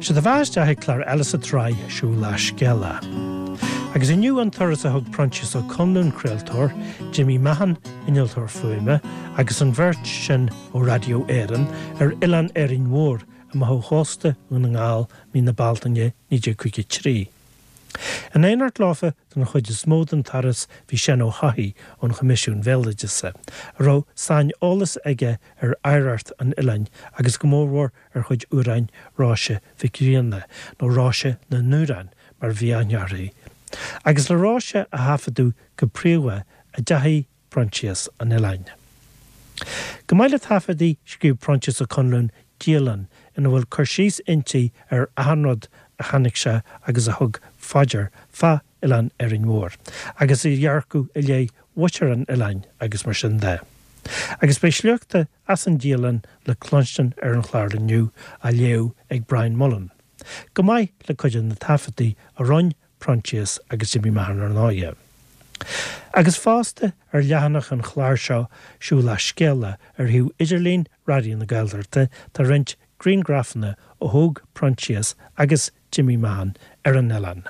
Sé do bheatha isteach ag clár eile sa tsraith Siúil le Scéala. Agus inniu an turas a thug Proinsias Ó Conluain, craoltóir, Jimmy Mahon, innealtóir fuaime, agus an bheirt sin ó Radio Éireann, ar Oileán Árainn Mhór amach ó chósta Dhún na nGall mí na Bealtaine 1953. In éineacht leofa don chuid is mó den turas bhí Seán Ó hEochaidh ón Choimisiún Bhéaloideasa, a raibh saineolas aige ar oidhreacht an oileáin agus go mórmhór ar chuid amhráin Róise Mhic Grianna, nó Róise na nAmhrán mar a bhí aithne uirthi. Agus le Róise a thaifeadadh go príomha a dteachaigh Proinsias 'un an oileáin. Chomh maith le taifeadaí, scríobh Proinsias Ó Conluain dialann ina bhfuil cur síos inti ar achan rud a chonaic sé agus a thug fá dear fá Oileán Árainn Mhór, agus a dhearcadh i leith mhuintir an oileáin agus mar sin de. Agus beidh sliochta as an dialann le cluinstin ar an chlár inniu, á léamh ag Brian Mullen, chomh maith le cuid de na taifeadtaí a rinne Proinsias agus Jimmy Mahon ar ndóighe. Agus fosta ar leathanach an chláir seo Siúil le Scéala ar shuíomh idirlín Raidió na Gaeltachta tá roinnt grianghrafanna a thóg Proinsias agus Jimmy Mahon ar an oileán.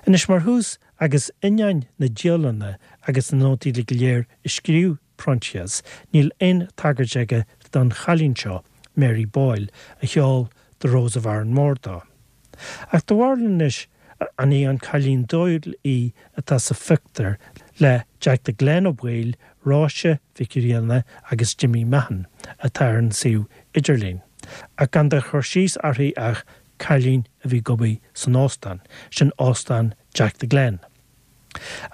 Anois mar thús agus ainneoin na dialainne agus na nótaí uilig go léir a scríobh Proinsias, níl aon tagairt aige don chailín seo, Mary Boyle, a cheol The Rose of Aranmore dó. Ach do bharúil anois an í an cailín Doyle í atá sa phictiúr le Jack the Glen Ó Baoill, Róise Mhic Grianna agus Jimmy Mahon atá ar an suíomh idirlín, ach gan de chur síos uirthi ach cailín a bhí ag obair san óstán, sin Óstán Jack the Glen.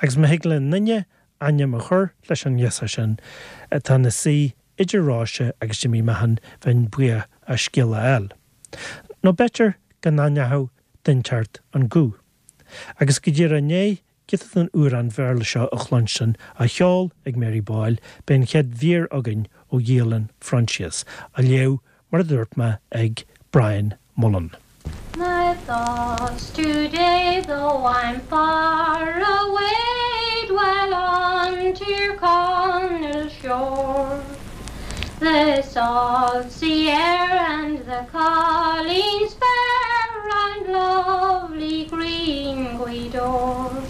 Agus má thig le n-duine ainm a chur leis an ngirseach sin atá ina suí idir Róise agus Jimmy Mahon bheinn buíoch as scéala a fháil. Nó b'fhéidir go n-aithneochadh duine inteacht an guth. Agus go díreach i ndiaidh giota den amhrán Bhéarla seo a chluinstin á cheol ag Mary Boyle, beidh an chéad mhír againn ó dhialann Phroinsias, á léamh, mar a dúirt mé, ag Brian Mullen. My thoughts today, though I'm far away, dwell on Tir Chonaill shore. The salt sea air and the colleens fair round lovely green Gweedore.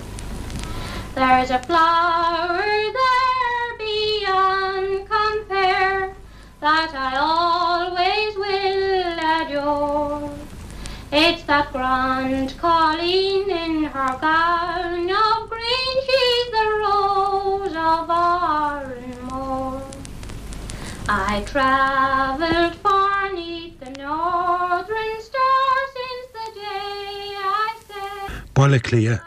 There's a flower there beyond compare that I always will adore. It's that grand colleen in her gown of green, she's the rose of Arranmore. I travelled far 'neath the northern star since the day I set Baile Átha Cliath,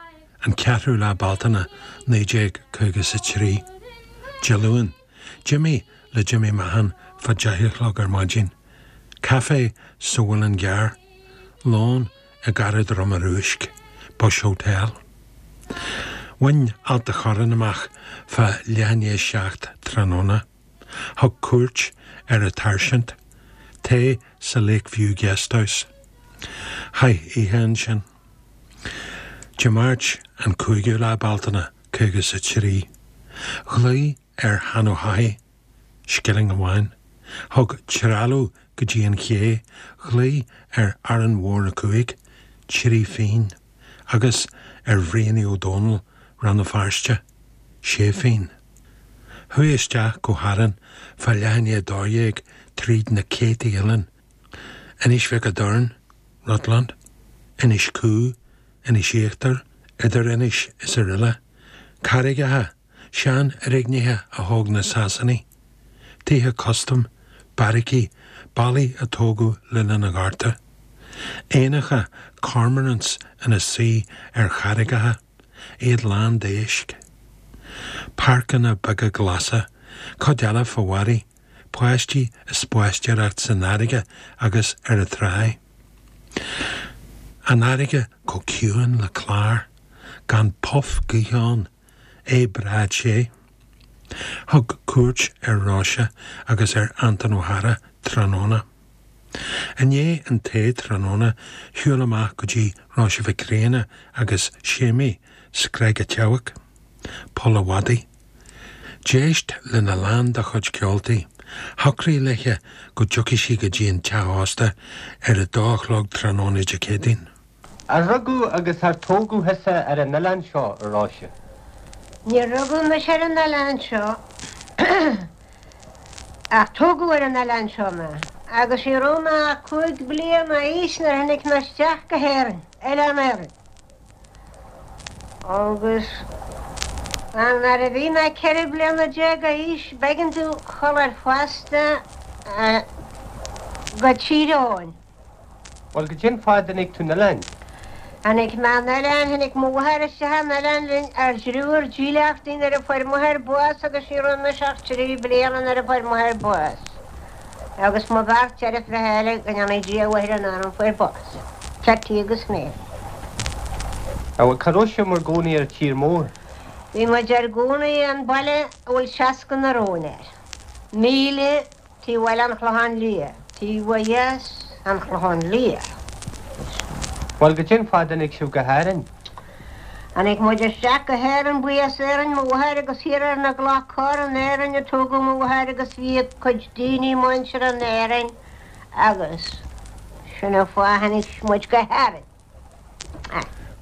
an 4ú lá Bealtaine 1953. Dé Luain. D'imigh le Jimmy Mahon fá 10 a chlog ar maidin. Caife sa Mhuileann gCearr. Lón i gCarraig Droma Rúisc, Bush Hotel. Bhain Ailt a' Chorráin amach fá leath i ndiaidh 7 tráthnóna. Thug cuairt ar a' tSáirsint. Tae sa Lake View Guest House. Chaith oíche ansin. Dé Máirt an 5ú lá Bealtaine, 53. Ghlaoigh ar Sheán Ó hEochaidh, scilling amháin. Thug trealamh go dtí an ché, ghlaoigh ar Árainn Mhór 5, 3 phingin, agus ar Bhrianaí Ó Dónaill, Rann na Feirste, sé phingin. Chuaigh isteach go hÁrainn fá leath i ndiaidh 12 tríd na céadtaí oileán, Inis Mhic a' Doirn, Rutland, Inis Cú, Inis Íochtair, Idir Inis is aroile, carraigeacha, seanfhoirgnithe a thóg na Sasanaigh, tithe custaim, beairicí, ballaí a tógadh le linn an Ghorta, éanacha cormorants ina suí ar charraigeacha, iad lán d'éisc. Páirceanna beaga glasa, cuid eile fá bharraí, páistí ag spaisteoireacht san fharraige agus ar an tráigh. An fharraige chomh ciúin le clár, gan puff gaoithe ann, é breá te. Thug cuairt ar Róise agus ar Anton Ó hEára tráthnóna. I ndiaidh an tae tráthnóna shiúil amach go dtí Róise Mhic Grianna agus Séimí Screig a' tSeabhaic, Poll a' Mhadaidh. D'éist lena lán dá chuid ceoltaí. Shocraigh léithe go dtiocfaidh sí go dtí an teach ósta ar a dó a chlog tráthnóna Dé Céadaoin. Ar rugadh agus ar tógadh thusa ar an oileán seo, a Róise? Níor rugadh mise ar an oileán seo ach tógadh ar an oileán seo mé agus ní raibh mé ach 5 bliana d'aois nuair a tháinig mé isteach go hÉirinn, Oileán Árainn. Agus nuair a bhí mé 14 bliana d'aois b'éigean domh dhul ar phosta go Tír Eoghain. Bhuel, goidé an fáth a dtáinig tú 'on oileáin? Tháinig mé 'on oileán, tháinig mo mháthair isteach 'on oileán linn ár dtriúr dílleachtaí nuair a fuair m'athair bás agus ní raibh mise ach 3 bliana nuair a fuair m'athair bás. Agus mo bheirt deirfiúracha eile, go ndéanaí Dia a mhaith ar a n-anam, fuair bás. Ceití agus Mary. Bhuel, cá raibh sibh mar gcónaí ar an tír mór? Bhí muid ár gcónaí i mbaile a bhfuil 60 na róin air. Míle Taobh Bhaile an Chlocháin Liath, taobh ó dheas an Chlocháin Liath. Bhuel, goidé an fáth a dtáinig sibh go hÁrainn? Tháinig muid isteach go hÉirinn, ba as Éirinn mo mháthair agus thiar ar na gCloch Corr in Éirinn a tógadh mo mháthair agus bhí a cuid daoine muinteartha in Éirinn agus sin an fáth a tháinig muid go hÁrainn.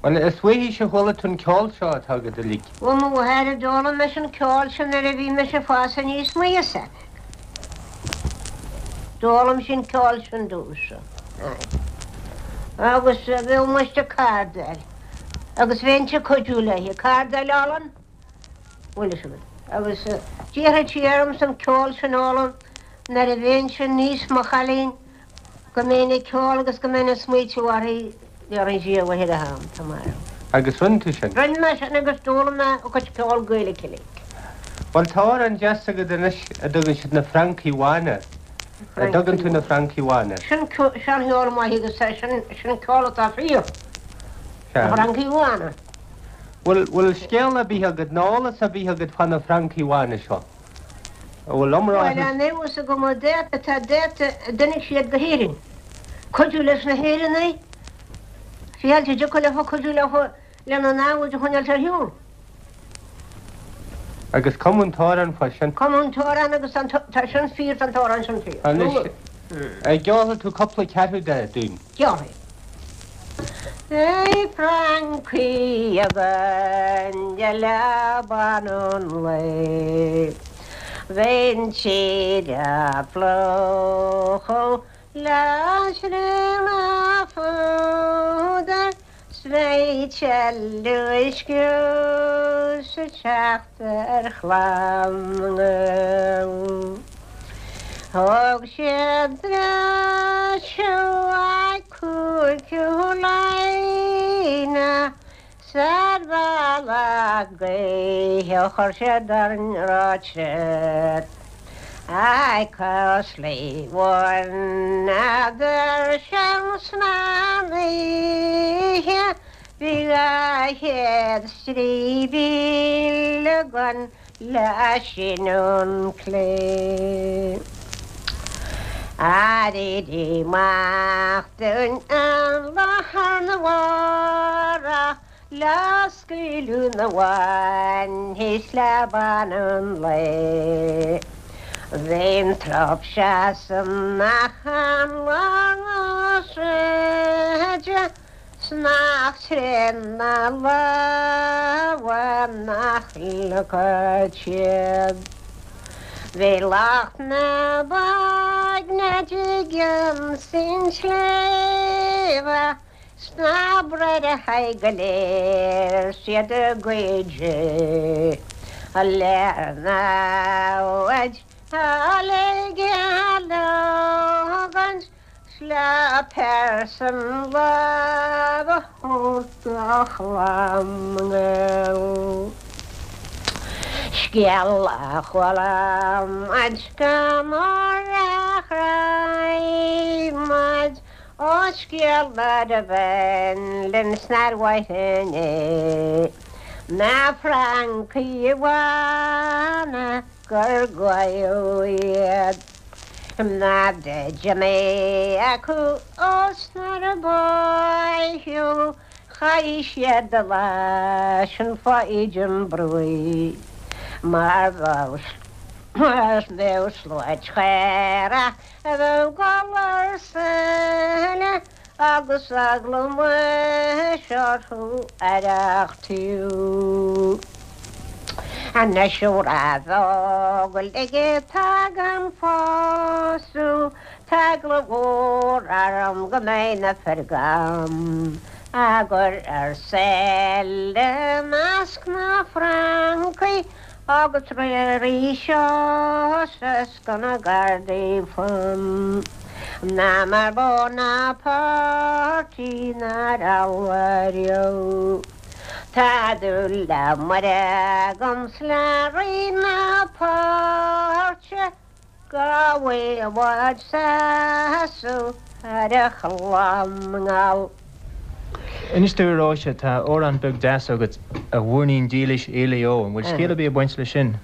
Bhuel, is uaithise a chuala tú an ceol seo atá agat uilig. Ó mo mháthair a d'fhoghlaim mise an ceol sin nuair a bhí mise ag fás aníos mo fhios agat. D'fhoghlaim sí an ceol sin domhsa. Agus bheadh muid ag cardáil agus bheinnse ag cuidiú léi. Cardáil olann, bhfuil fhios agat. Agus d'iarrfadh sí ormsa an ceol sin a fhoghlaim nuair a bheinnse níos mo chailín. Go mbeinn ag ceol agus go mbeinn ag smaoitiú uirthi, déarfaidh sí a mháthair a ham, tá marbh. Agus rinne tú sin? Rinne mé sin agus d'fhoghlaim mé a cuid ceol Gaeilge uilig. Bhuel, tá amhrán deas agat anois a dtugann siad na Francaigh Bhána. An dtugann tú na Francaigh Bhána? Sin seancheol maith agus sin ceol atá fíor. Na Francaigh Bhána. Bhfuil, bhfuil scéal ar bith agat, nó eolas ar bith agat fá na Francaigh Bhána seo? An bhfuil iomrá Bhuel, an fhios agam an dáta tá dáta a dtáinig siad go hÉirinn. Cuidiú leis na hÉireannaigh, fiáilte a dtiocfadh leofa cuidiú leofa lena namhaid a choinneáilt ar shiúl. Agus cumadh an t-amhrán fá sin. Cumadh an t-amhrán agus tá sin fíor, tá an t-amhrán sin fíor. Anois, an gceolfaidh tú cúpla ceathrú de dúinn? Ceolfaidh. Beidh francaigh againn de leaba an lae. Bheidh an tír á phlúchadh le srionadh fúdair 's beidh tuilleadh scrios ag teacht ar chlann na nGael. Thóg siad breis uaidh Cúigiú Laighean 's ar bhealach gaoithe chuir siad orainn ráite Ag Cosley bhaineadar seans na n-oíche Bhí 200 stríbíl againn le síneadh an clé. Éirí amach dúinn an lá arna mhárach le scaoileadh na bhfainne thíos leaba an lae. Bhí an trup seasamh an lá na sráide 's nach tréan na lámha nach leagfadh siad. Bhí lucht na baigne i gcionn an tsléibhe 's na bráithre go léir 's iad ag goid le namhaid a ligean leogaint 's le pearsan lámh a thabhairt do chlann na nGael. Scéal a chuala muid go mór a chroí muid, ó scéal a bhain linn 's nár mhaith linn é, na Francaigh Bhána gur gabhadh iad. Na d'imigh acu ós nuair a báitheadh chaith siad a lá sin fá íde an bhrúigh mar bheadh. Is bheadh sluaite chaorach a bheadh ag gol ar seile agus eagla muis orthu arreachtú. Anois ó raibh eagal aige tagann pósadh, tá eagla mhór orm go mbeidh na fir agam á gcur ar seile i measc na francaigh agus arís is go na gardaí fam ná mar Bonaparte nár almhairiú. Tá dúil le Muire agam 's le Rí na páirte go bhfuil i bhfad sásamh ar a chlann nGall. Inis dúinn a Róise, tá amhrán beag deas agat, A Mhuirnín Dílis Éilí Ó. An bhfuil scéal ar bith ag baint leis sin?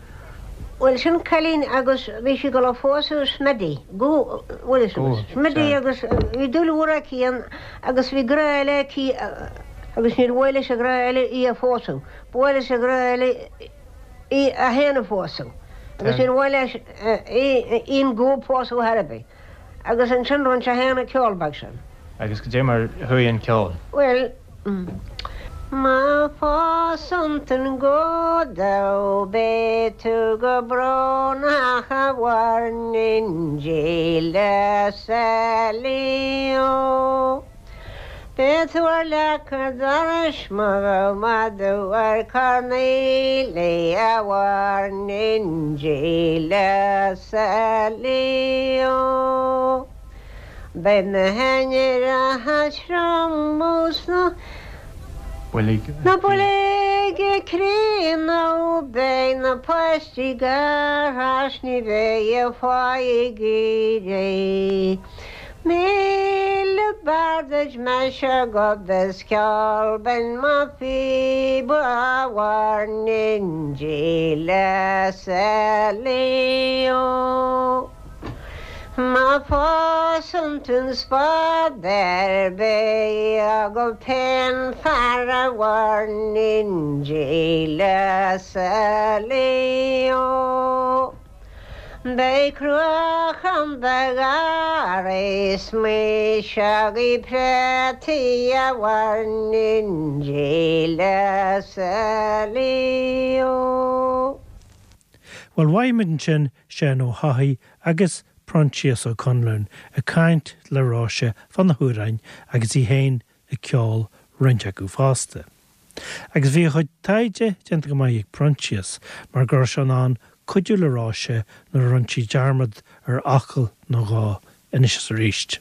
Bhuel, sin cailín agus bhí sí ag dul a phósadh Smiddy, go, bhfuil fhios agat, Smiddy agus bhí dúil mhór aici ann agus bhí grá eile aici agus níor mhaith leis an ghrá eile í a phósadh, ba mhaith leis an ghrá eile í a fhéin a phósadh agus níor mhaith leis í an gó pósadh thar ar bith agus ansin rinne sé féin an ceol beag sin. Agus goidé mar a chuaigh an ceol? Bhuel. Má phósann tú an gó domh beidh tú go brónach a mhuirnín dílis Éilí Ó. Beidh tú ar leac an dorais má bheadh madadh ar Cornelia a mhuirnín dílis Éilí Ó. Beidh na hainnireacha trom 's na boilg críonna beidh na páistí gearrtha 's ní bheidh fáidh ag éirí. 1000 b'fhearr duit mise gob is ceol binn mo phíob a mhuirnín dílis Éilí Ó. Má phósann tú an spádaire beidh agat féin fear a mhuirnín dílis Éilí Ó. Beidh cruachan do gharraí 's maoiseogaí préataí a mhuirnín dílis Éilí Ó. Bhuel, mhaígh muid ansin Seán Ó hEochaidh agus Proinsias Ó Conluain ag caint le Róise fá na hamhráin agus í féin ag ceol roinnt acu fosta. Agus bhí a chuid taighde déanta go maith ag Proinsias mar go raibh sé in ann cuidiú le Róise nuair a rinne sí dearmad ar fhocal nó dhó anois is arís.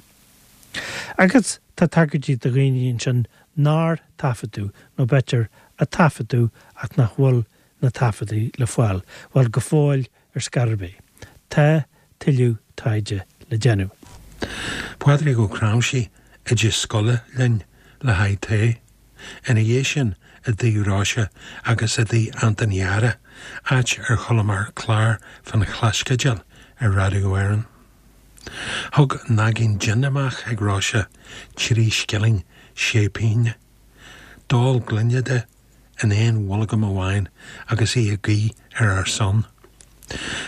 Agus tá tagairtí do dhaoine ansin nár taifeadadh nó b'fhéidir a taifeadadh ach nach bhfuil na taifeadaí le fáil, bhuel, go fóill ar scor ar bith. Tá tuilleadh taighde le déanamh. Pádraig Ó Cnáimhsí, oide scoile linn le haghaidh tae. Ina dhiaidh sin i dtigh Róise agus i dtigh Antain Dheara, áit ar chualamar clár fán Chlaisceidil ar Raidió Éireann. Thug naigín jin amach ag Róise, 3 scilling 6 pínne. D'ól gloine de in aon bholgam amháin agus í ag guí ar ár son.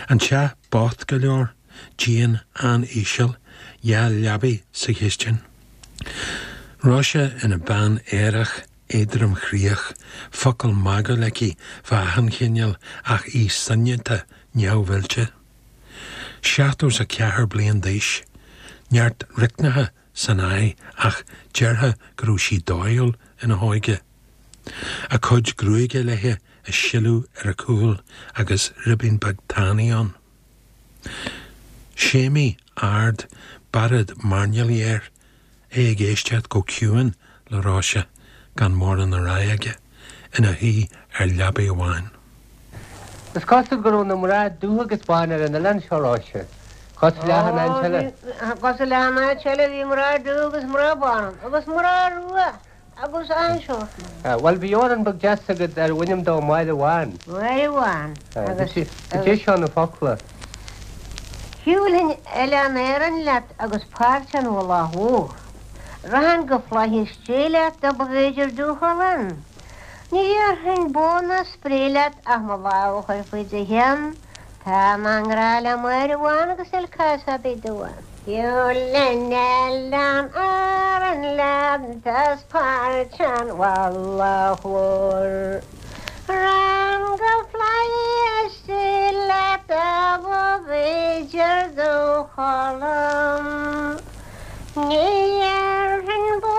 An teach bocht go leor, díon an-íseal, 2 leabaidh sa chistin. Róise ina bean aerach éadromchroíoch, focal magúil aici fá achan chineál ach í soineanta neamhoilte. 74 bliain d'aois, neart riocnacha san aghaidh ach déarfá go raibh sí dóighiúil ina hóige. A cuid gruaige léi ag sileadh ar a cúl agus ribín beag tanaí ann. Séimí ard, bearád mairnéalaigh air, é ag éisteacht go ciúin le Róise, gan mórán a rá aige, ina shuí ar leabaidh amháin. Is cosúil go raibh na mná dubha agus bán ar an oileán seo, Róise. Cosúil le achan áit eile. Cosúil le achan áit eile, bhí mná dubha agus mná bán ann, agus mná rua agus an-seort mná. Bhuel, bhí amhrán beag deas agat arbh ainm dó Máire Bhán. Máire Bhán. Agus. Goidé seo na focla. Shiúlfainn Oileán Árann leat agus Páirc an Mhullaigh Mhór. Rachainn go Flaithis Dé leat dá mb'fhéidir domh dhul ann. Ní dhéarfainn bó ná spré leat ach mo lámh a chur faoi do cheann. Tá mé i ngrá le Máire Bhán agus níl cás ar bith domh. Siúlann Oileán Árann leat as Páirc an Mhullaigh Mhóir. Rang go flaithis leat a b'fhéidir do chodladh. Ní dhéarfainn bó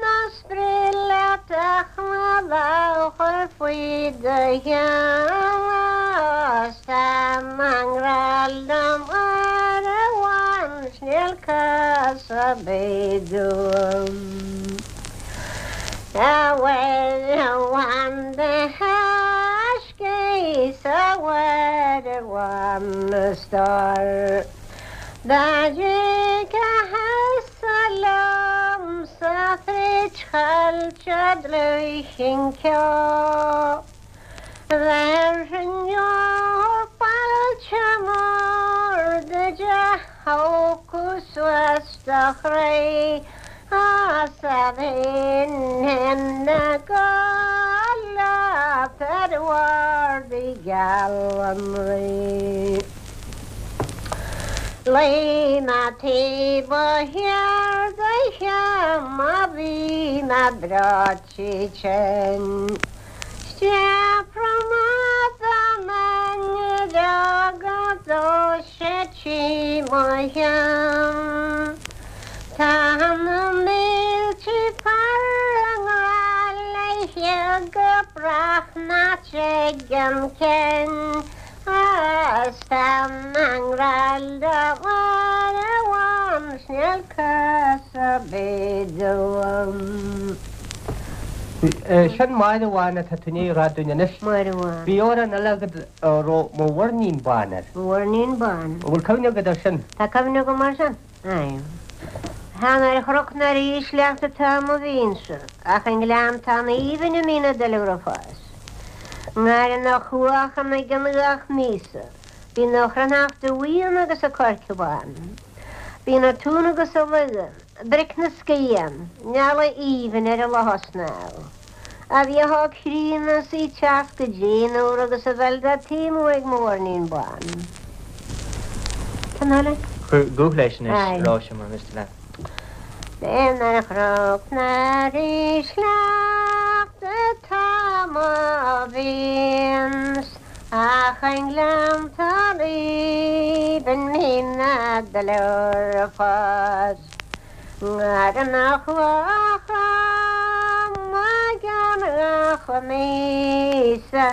ná Spraoi leat ach mo lámh chur faoi do cheann Is tá mé i ngrá le Máire Bhán 's níl cás ar bith dom. A Mháire Bhán do thaiscidh 's a Mháire Bhán a stór. Dá dtiocfathsa liomsa fríd choillte dlúith an ceo, Bhéarfainn deoir fáilte mhór duit a thógfadh suas do chroí 's a bheinn ina gcodladh ar bhord gheal an Rí. Luigh mé taobh thiar d'oíche má bhí mé breoite tinn. Stiabhra na nduilleog dó sé trí mo cheann. Tá na mílte fear i ngrá léi go brách nach dtig an cionn. Is tá mé i ngrá le Máire Bhán 's níl cás ar bith dom. Sin Máire Bhán atá tú i ndiaidh a rá dúinn anois. Máire Bhán. Bhí amhrán eile agat a raibh Mo Mhuirnín Bán air. Mo Mhuirnín Bán. An bhfuil cuimhne agat air sin? Tá cuimhne agam air sin. Aye. Chan ar chnoc ná ar ísleacht atá mo mhiansa, ach i ngleanntán aoibhinn a mbíonn na duilleoga ag fás. Ngarraí na cuachan ag an gach míosa, bíonn a chruithneachta bhuíon agus a coirce bán. Bíonn a tún agus a luigheann, bric na scian, eala aoibhinn ar an loch snámh. A bhíodh á críonna is í teacht go dtéanúr agus a bheil dá taomú ag mo mhuirnín bán. Ceann eile? Cuir guth leis anois, a Róise, mura miste leat. Chan ar chnoc ná ar ísleacht atá mo mhian 's ach i ngleanntán aoibhinn mbíonn na duilleoga ag fás. Ngarraí na gcloch gan gach míosa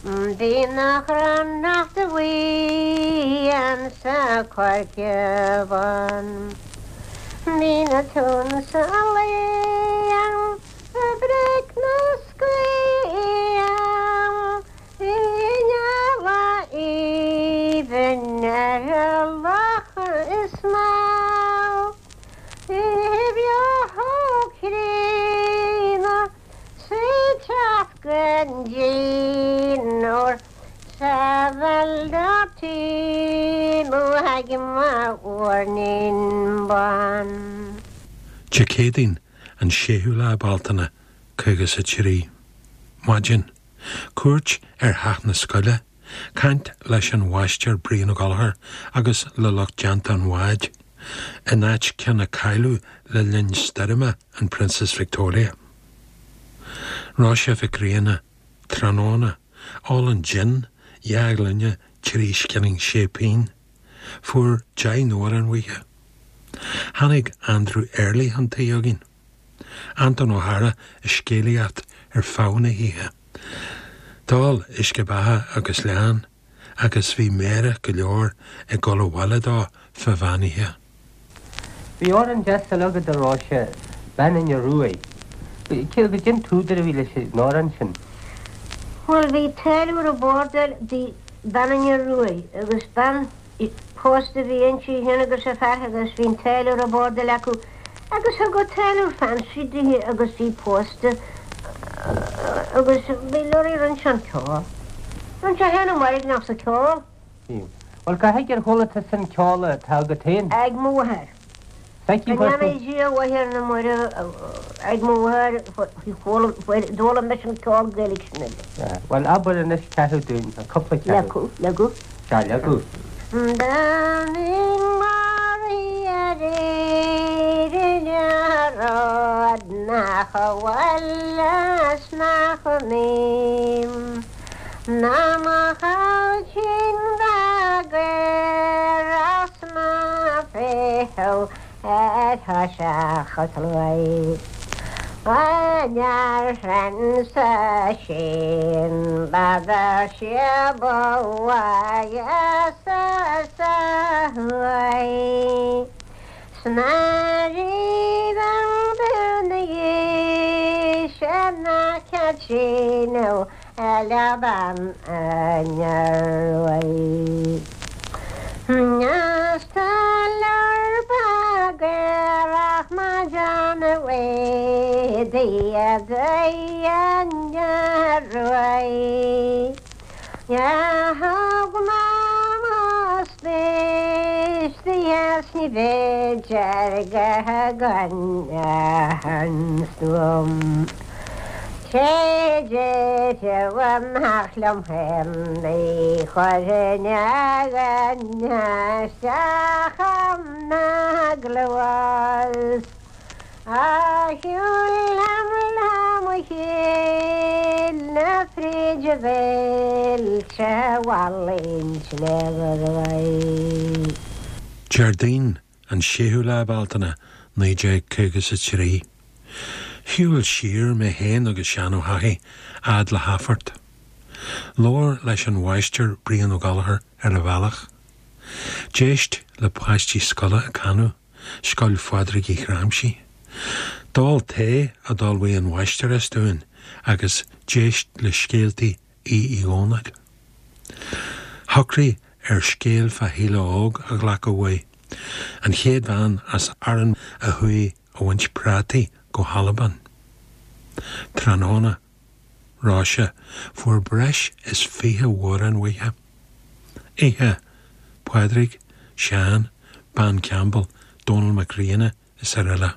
Bíonn a chruithneachta bhuíon 's a coirce bán. Bíonn a tún 's a luíonn bric na scian I ngeala aoibhinn ar a loch is mó. Dé Céadaoin, an 6ú lá Bealtaine, 53. Maidin. Cuairt ar theach na scoile. Caint leis an Mháistir Brian Ó Gallchóir agus le lucht déanta an bháid, in áit ceann a cailleadh le linn stoirme an Princess Victoria. Róise Mhic Grianna, Tráthnóna, Ól an jin, 2 ghloine, 3 scilling 6 pingin. Fuair 10 n-amhrán uaithe. Tháinig Andrew Earley chun tí againn. Anton Ó hEára ag scéalaíocht ar feadh na hoíche. D'ól uisce beatha agus leann agus bhí meidhreach go leor ag dul abhaile dó fá mheán oíche. Bhí amhrán deas eile agat a Róise, Bean Fhine Ruaidh. Cé an t-údar a bhí leis an amhrán sin? Bhuel, bhí táilliúir i bhfordal, bhí Bean Fhine Ruaidh agus bean Pósta a bhí inti féin agus a fear agus bhí an táilliúir i bhfordal acu agus thug an táilliúir fancy dithe agus í pósta agus bhí lorry rinne sé an ceol. Rinne sé féin an mhairgneach sa ceol. Bhí. Bhuel, cá háit ar chuala tusa an ceol atá agat féin? Ag mo mháthair. Go ndéana Dia a mhaith ar na mairbh ag mo mháthair d'fhoghlaim mise an ceol Gaeilge sin uilig. Bhuel, abair anois ceathrú dúinn, nó cúpla ceathrú. Leagadh, leagadh. Sea, leagadh. Bean maraithe aréir in Ard nach bhfuil is nach mbím ná mo chailtín beag ar as na féitheadh ar thoiseach a tluaigh. An fhear sin b'fhada sé ba mhaith sa thuaidh. 'S ná raibh an duine ná Caitríona le bean an Iarmhaigh. 'S tá leor bagarach maidean uaidh Dia an Iarmhaigh. Thug Mama spéis di is ní b'fhéidir go gan stuaim. Sé déarfadh amach liom féin ní chuirfinn a dhuine isteach ina gcluas. A shiúl liom le mo chéile fríd bhailte Mhallaing Sléibhe. Déardaoin, an 6ú lá Bealtaine, 1953. Shiúil siar mé féin agus Seán Ó hEachaidh fhad le hAthphort. Labhair leis an Mháistir Brian Ó Gallchóir ar an bhealach. D'éist le páistí scoile ag canadh. Scoil Phádraig Uí Chráimsí. D'ól tae a d'ullmhaigh an mháistreás dúinn agus d'éist le scéaltaí Aoidh Uí Dhónaill. Shocraigh ar scéal fá Shíle Óg a ghlacadh uaidh, an chéad bhean as Árainn a chuaigh a bhaint prátaí go hAlbain. Tráthnóna. Róise, fuair breis is 20 amhrán uaithe. Oíche, Pádraig, Seán, Bean Campbell, Dónal Mac Grianna is araile.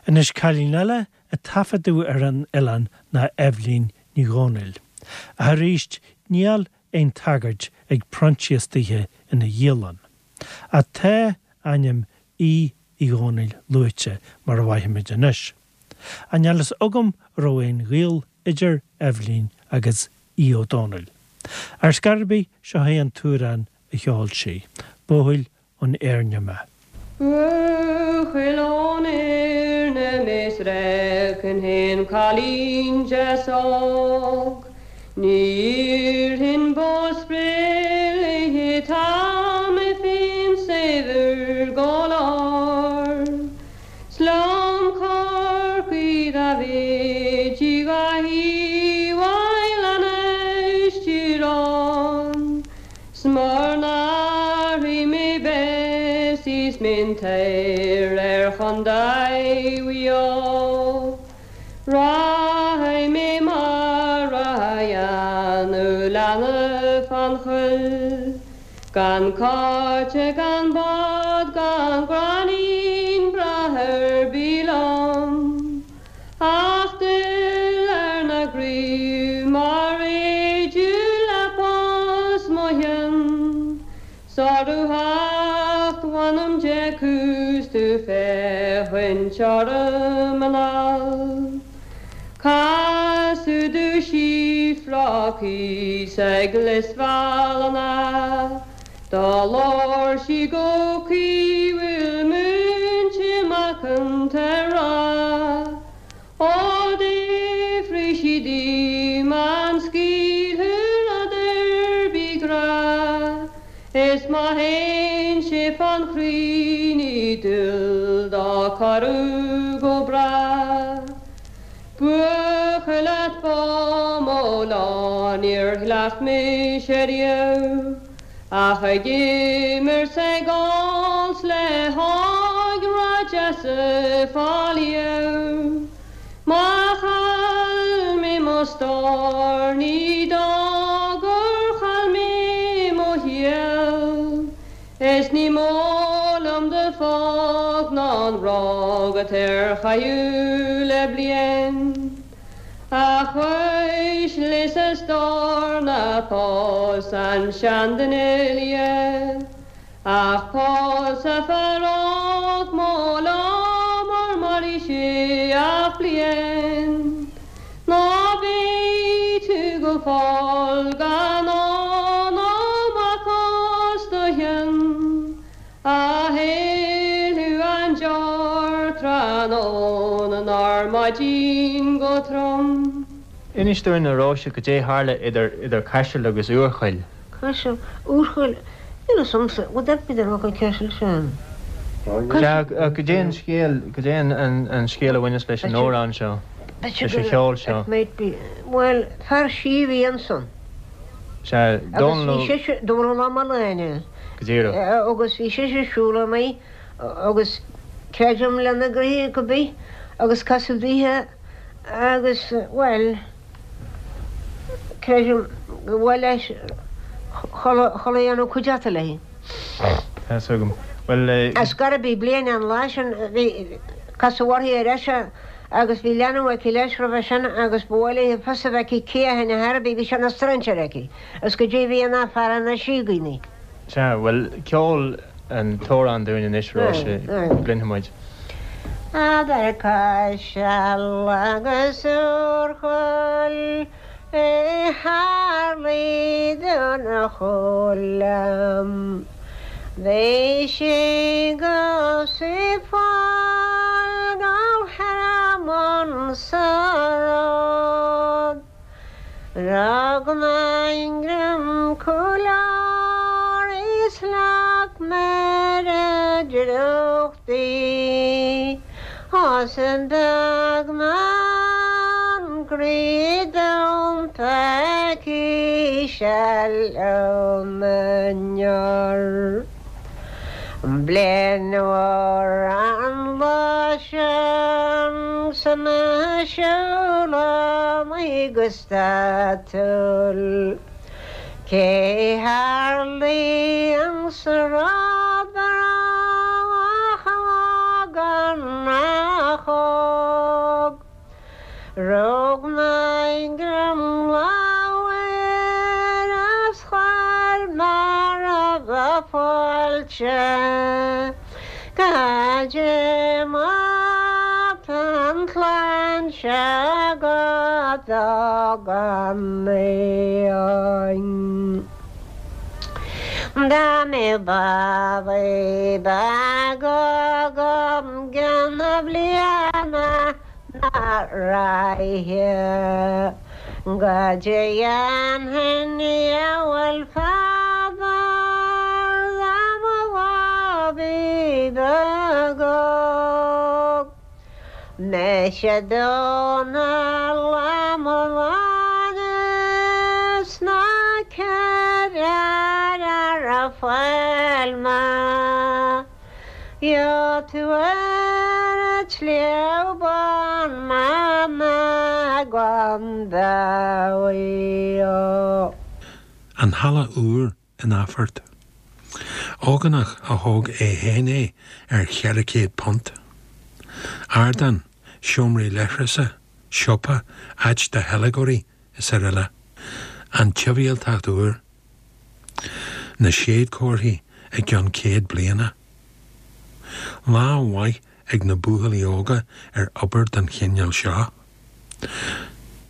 Anois cailín eile a taifeadadh ar an oileán ná Eibhlín Ní Dhomhnaill. Ach arís níl aon tagairt ag Proinsias daoithe ina dhialann. Ach tá ainm Aoidh Uí Dhomhnaill luaite mar a bhfaighimid anois. Ach níl fhios agam an raibh aon ghaol idir Eibhlín agus Aodh Ó Domhnaill. Ar scor ar bith, seo é an t-amhrán a cheol sí, Buachaill ón Éirne mé. Buachaill ón Éirne mé 's reacainn féin cailín deas óg. Ní iarrfainn bó spré léi tá mé féin saibhir go leor. 'S liom Corcaigh dá bhféadfaí dhá thaobh anois Tír 'S mura n-athraí mé Bessie 's miontír ar Chontae Mhaigh Eo. Rachaidh mé mar a dhéanadh leanbh fán choill. Gan cáit gan bád gan gráinnín breá ar bith liom, Ach duillear ar na gcraobh mar réideadh le bos mo chionn, 'S orthu theacht mh'anam Dé cúis tú féachaint orm anall. Casadh domh síofra thíos ag Lios Bhealna, Do labhair sí go caoithiúil múinte macánta ag rá, Ó d'fhiafraigh sí díom an scaoilfeadh rud ar bith grá, Is má théann sé fán chroí ní dual dó corrú go bráth. Buachaill at ba mó lá níor chleacht mise riamh ach ag imirt 's ag ól 's le hógra deasa fá liamh. Má chaill mé mo stór ní dóigh gur chaill mé mo shaol is ní mó liom do fágáil. Rá agat ar chaitheamh le bliain. A chois lios a stór ná pós an seanduine liath, Ach pós a fear óg mo liom mar mairfidh sé ach bliain. Ná beidh tú go fóill gan ól ná mac os do chionn. A héalú an deor tráthnóna nár maidin go trom. Inis dúinn, a Róise, goidé tharla idir idir Caiseal agus Úrchoill. Caiseal, Úrchoill, níl fhios a'msa, would that be the local Caiseal sin? Sea, goidé an scéal, goidé an scéal a bhaineas leis an amhrán seo, leis an cheol seo? It might be, bhuel, fear sí a bhí ansan. Sea, Dónal Ó. Agus bhí sise, Dónal Ó Mealláin. Go díreach. Agus bhí sise ag siúl amach agus creidim lena gnoithe go bith agus casadh daoithe agus, bhuel, creidim go bhfuil leis chuile chuile dhéanamh cuideachta léi. Tá 'fhios agam. Bhuel. Ar scor ar bith bliain an lá sin bhí casadh uirthi ar ais agus bhí leanbh aici leis roimhe sin agus ba mhaith léi fios a bheith aici cé a tháinig thar bith, bhí sé ina strainséir aici. Is go dtí bhí an fear ina síogaí. Sea, bhuel, ceol an t-amhrán dúinn anois, Róise, go gcluinfidh muid. Eadar Caiseal agus Úrchoill a tharlaigh don Choilm. Bhí sí go fáil go hEarmann sa ród. Rug mé greim cúil uirthi is leag mé ar a drúcht í Is an beag maith an croí dom pecaí-se liom inniu. Bliain mhór an lá sin 's mé ag siúl amach go statúil. Cé tharlaigh an sráid ach ógánach óg. Rug mé greim lámh air is chuir mé roimhe fáilte. Goidé mar tá an chlann seo agat gan aon. Dá mbeadh babaí beag agam gceann na bliana na ráithe goidé dhéanfainn diabhal fadar dá mo bhabaí beag óg. Mise Dónall Ó Mealláin is ná ceithre ar a fáil mé. Gheobhaidh tú ar an tSliabh Bán mama gan dabht. An Halla Úr in Athphort. Ógánach a thóg é féin é ar £400. Ardán, seomraí leithreasa, siopa, áit do theilgeoirí is araile. An tsibhialtacht úr. Na séadchomharthaí i gceann 100 bliana. Lá mhaith ag na buachaillí óga ar obair den chineál seo.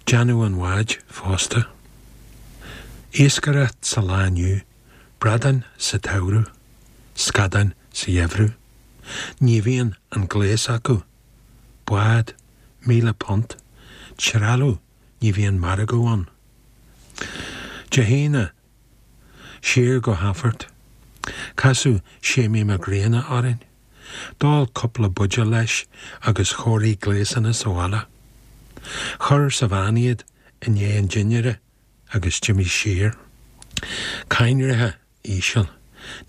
Déanamh an bháid fosta. Iascaireacht sa lá inniu, bradáin sa tsamhradh, scadáin sa gheimhreadh. Ní bhíonn an gléas acu. Bád, £1,000, trealamh ní bhíonn margadh ann. Dé hAoine, siar go hAthphort. Casadh Séimí Mac Grianna orainn. D'ól cúpla buidéal leis agus chóirigh gléasanna sa bhaile. Chuir sa veain iad i ndiaidh an dinnéara agus d'imigh siar. Coinnrithe íseal.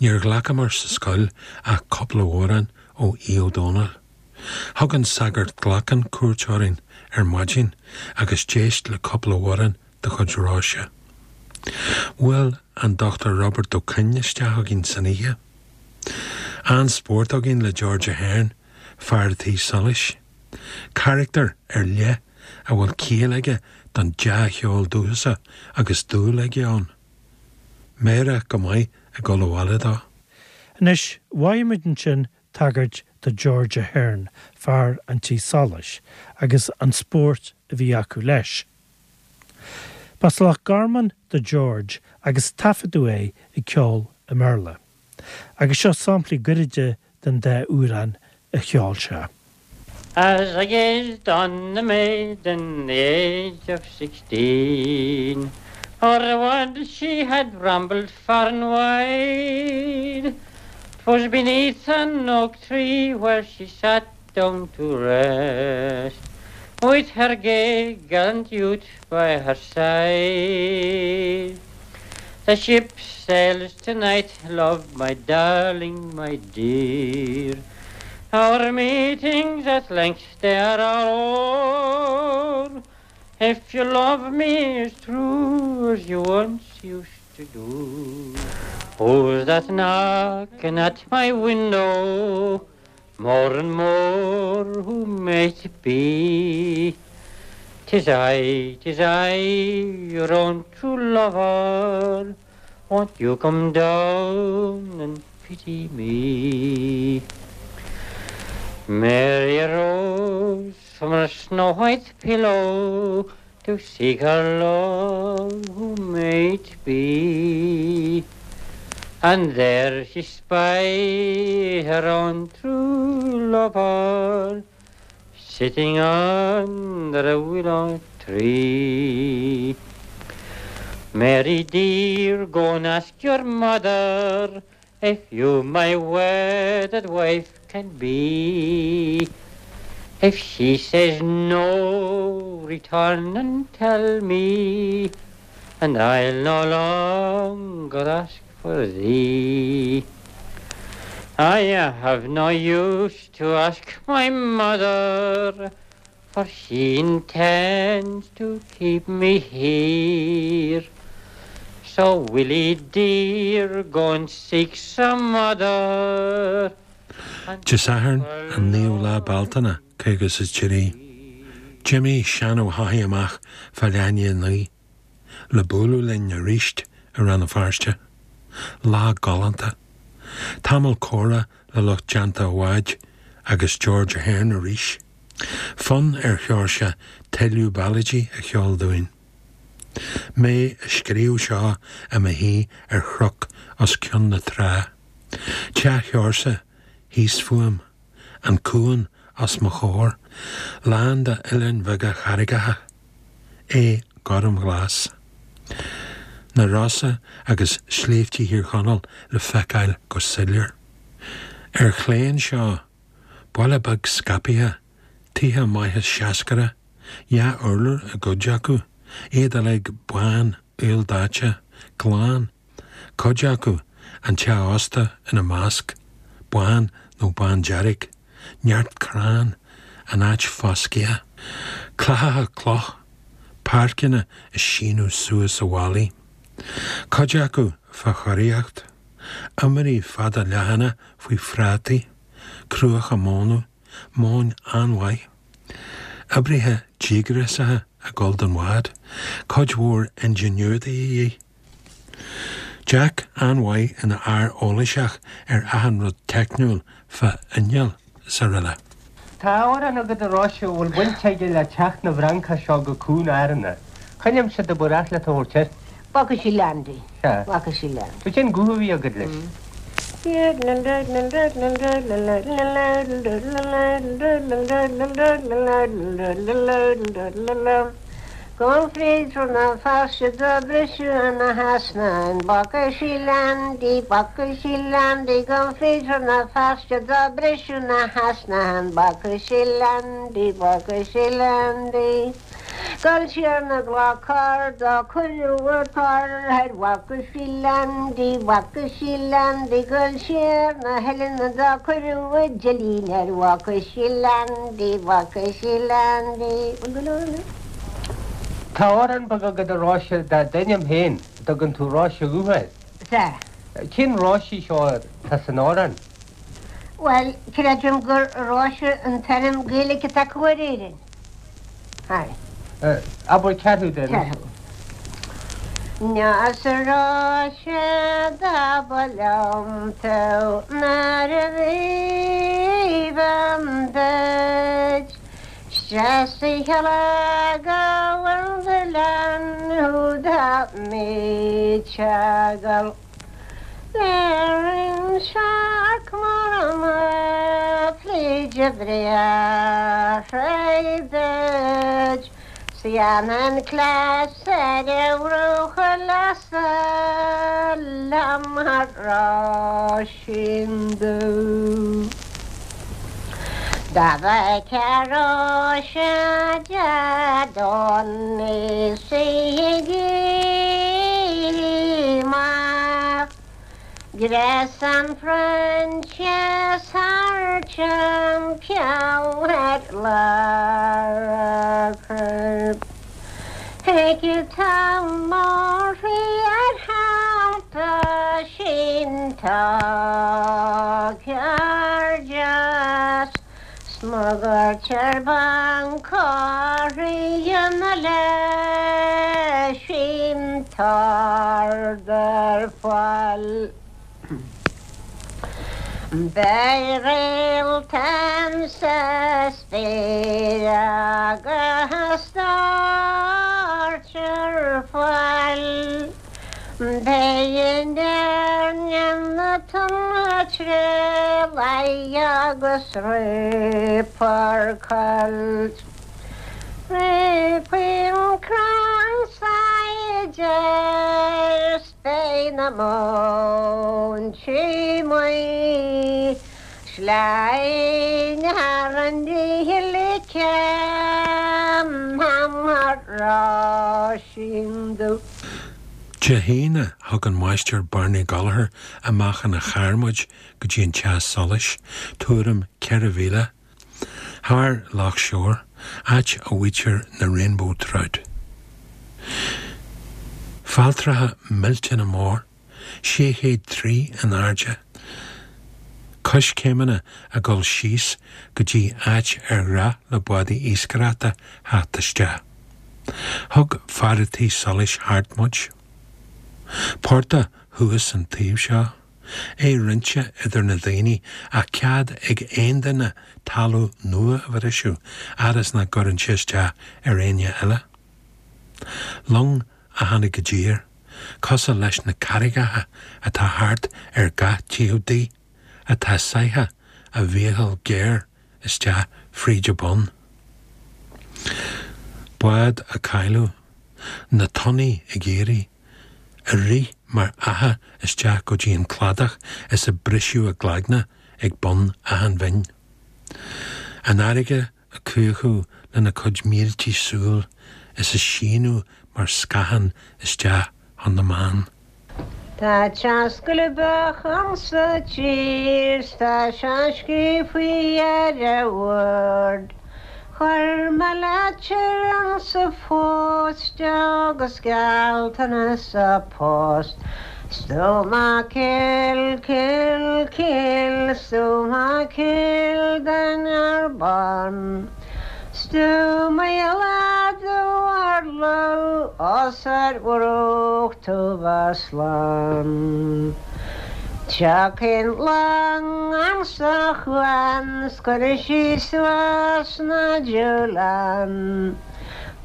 Níor ghlacamar sa scoil ach cúpla amhrán ó Aodh Ó Dónaill. Thug an Sagart Glackin cuairt orainn ar maidin agus d'éist le cúpla amhrán de chuid Róise. Bhuail an Dr Robert Ó Coinn isteach againn san oíche. An-spórt againn le George Ahern. fear a' tí solais. Carachtar ar leith a bhfuil ciall aige don dea-cheol dúchasach agus dúil aige ann. Meidhreach go maith ag dul abhaile dó. Anois, mhaígh muid ansin tagairt do George Ahern, fear an tí solais, agus an spórt a bhí acu leis. B'as Loch Garman do George agus taifeadadh é ag ceol i mBéarla. Agus seo samplaí gairide den dá amhrán a cheol sé. As I gazed on the maiden the age of 16 O'er the world she had rambled far and wide 'Twas beneath an oak tree where she sat down to rest With her gay gallant youth by her side. The ship sails tonight, love, my darling, my dear. Our meetings at length they are all o'er. If you love me as true as you once used to do. Who's that knocking at my window? More and more who may it be? Tis I, tis I, your own true lover. Won't you come down and pity me? Mary arose from her snow-white pillow to seek her love who may it be? And there she spied her own true lover sitting under a willow tree. Mary dear, go and ask your mother if you my wedded wife can be. If she says no, return and tell me, and I'll no longer ask for thee. I have no use to ask my mother, for she intends to keep me here. So Willie dear, go and seek some other. Dé Sathairn, an 9ú lá Bealtaine, 53. D'imigh Seán Ó hEochaidh amach fá leath i ndiaidh a 9 le bualadh linn aríst i Rann na Feirste. Lá galánta. Tamall comhrá le lucht déanta a bháid agus George Ahern arís. Fonn ar Sheoirse tuilleadh ballaidí a cheol dúinn. Mé ag scríobh seo i mo shuí ar chnoc os cionn na trá. Teach Sheoirse thíos fúm, an cuan os mo chomhair, lán de oileáin bheaga charraigeacha, é gormghlas. Na Rosa agus sléibhte Thír Chonaill le feiceáil go soiléir. Ar chlé anseo, baile beag scaipthe, tithe maithe seascaire, dhá urlár i gcuid acu, iad uilig bán, aoldaite, glan. Cuid acu, an teach ósta ina measc, bán nó bándearg, neart crann, an áit foscaithe. Clathacha cloch, páirceanna ag síneadh suas ó bhallaí. Cuid acu fá chóiríocht. Iomairí fada leathana faoi phrátaí, cruacha móna, móin an-mhaith. Oibrithe díograsacha ag dul don bhád, cuid mhór ingénieur de dhíth. Jack an-mhaith ina fhear eolaseach ar achan rud teicniúil fá inneall is araile. Tá amhrán agat a Róise a bhfuil baint aige le teacht na bhFrancach seo go Cuan Árann. Cá n-aimsir do ba ghnách leat a thabhairt air? Bhfaca sí Landy. Sea. Bhfaca sí Landy. Cén guth a bhí agat leis? Gabh fríd Rann na Feirste do briseadh na heasnáin Bhfaca sí Leaindí, bhfaca sí Leaindí Gabh fríd Rann na Feirste do briseadh na heasnáin Bhfaca sí Leaindí, bhfaca sí Leaindí Gol siar na gClochar do cuireadh a tor air Bhfaca sí Leaindí, bhfaca sí Leaindí Gol siar na hoileanna do cuireadh a deilín air Bhfaca sí Leaindí, bhfaca sí Leaindí Bhfuil go leor anois? Tá amhrán beag agat a Róise dá d'ainm féin, a dtugann tú Róise Dhubh air. Sea. Cén Róise í seo atá san amhrán? Bhuel, creidim gur Róise an t-ainm Gaeilge atá acu ar Éirinn. Hi. Abair ceathrú de. Ceathrú. Is a Róise do ba liom tú nuair a bhí bhean duit. 'S deas a gabhann do lean thú dá mbíteagal. Ar searc mar an pluide breá duit, 's dhéanfainn cleas ar a bhruach leasa liom a Róisín Dubh. Dá bhfeicfeá Róise Dé Domhnaigh 's í ag éirí amach, Gréasán Proinsias thar timpeall ar lár a coirp. Thuigfeadh tú mórthrí ar theannta sin tá cairdeas. 'S má ghoirtear bancáirí na leis sin tard ar fáil. Beidh réalta sa spéir agus toirt ar fáil. Beidh in Éirinn na tonnta agus reapar coilt. Faoin gcrann saighdear 's beidh na móintí maoth sleamhain thar an díle céim a Róisín Dubh. Dé hAoine, thug an Máistir Barney Gallagher amach ina charr muid go dtí an teach solais, tuairim 4 mhíle thar Loch Seoir, áit a bhfaightear na rainbow trout. Failltreacha millteanna mór, 6 chéad 3 in airde, coiscéimeanna ag dul síos go dtí áit ar ghnách le bádaí iascaireachta theacht isteach. Thug fear a' tí solais thart muid. Portach thuas an taobh seo, é roinnte idir na daoine ach cead ag aon duine talamh nua a bhriseadh fhad is nach gcuireann sé isteach ar éinne eile. Long a tháinig i dtír, cosúil leis na carraigeacha atá thart ar gach taobh di, atá sáithe a mhíochal géar isteach fríd a bun. Bád a cailleadh, na tonnaí ag éirí, ag rith mar fhaiche isteach go dtí an cladach is ag briseadh a gcloigne ag bun achan bhinn. An fharraige ag cuachadh lena cuid míltí súl is ag síneadh mar scáthán isteach chun na mban. Tá teas coilbeach ansa tír 's tá sé scríofaí ar a bhord. Chuir mé leitir ansa phost agus gealltanas sa post. Stoma Cill, Cill, Cill, Stoma Cill den Arbán. Os ar bhruach tú slán. Tiocfaidh long ansa chuan 's cuirfidh sí suas na dúlán.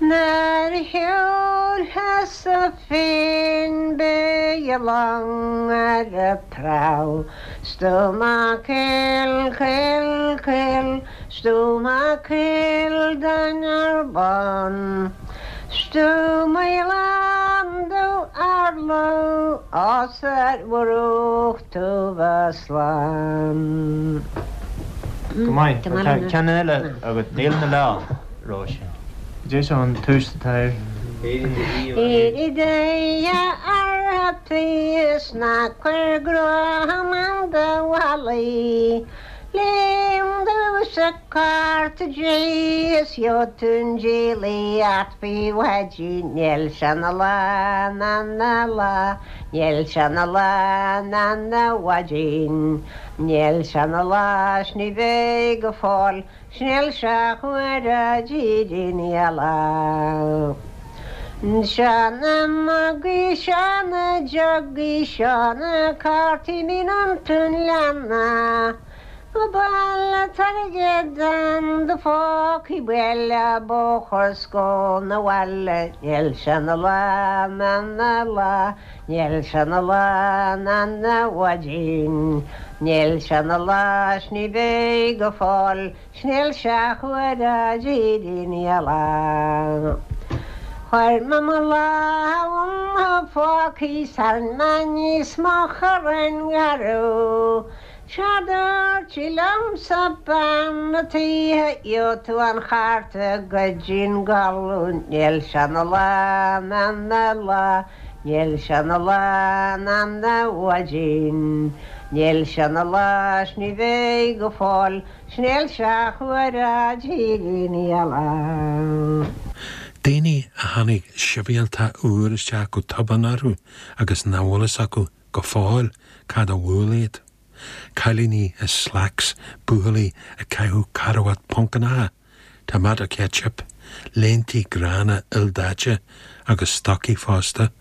Nuair a shiúlfas-sa féin beidh an long ar a prow. Stoma Cill, Cill, Cill, Stoma Cill den Arbán. Os ar bhruach tú slán. Go maith. Tá ceann eile agat, Níl 'na lá, Róise. Cad é seo an tús atá air? Éirigh de a artaí is ná cuir gruam do mhalaí. Léim domhsa cárta Dé is gheobhaidh tú an diabhlaíocht faoi mhaidin Níl sé 'na lá ná 'na lá Níl sé 'na lá ná 'na mhaidin Níl sé 'na lá 's ní bheidh go fóill 's níl sé chomh a dtírín eile. Seo na mugaí, seo na jugaí, seo na cártaí mín iontu an leanna. Go bail an t-airgead in do phócaí buail an bóthar 's gabh 'na bhaile. Níl sé 'na lá ná 'na lá, níl sé 'na lá ná 'na mhaidin. Níl sé 'na lá 's ní bheidh go fóill 's níl sé chomh a dtírín eile. Chuir mé mo lámh i mo phóca 's tharraing mé aníos mo chorrán garbh. 'Séard a dúirt sí liomsa bean a' tí gheobhaidh tú an chárta go dtí'n gcodladh. Níl sé 'na lá ná 'na lá, níl sé 'na lá ná 'na mhaidin. Níl sé 'na lá 's ní bheidh go fóill 's níl sé chomh a dtírín eile. Daoine a tháinig sibhialtacht úr isteach go tobann orthu agus nach bhfuil fhios acu go fóill cad a bhuail iad. Cailíní i slacks, buachaillí ag caitheamh carbhat poncannacha, tomato ketchup, léintí gránna ildaite agus stocaí fosta,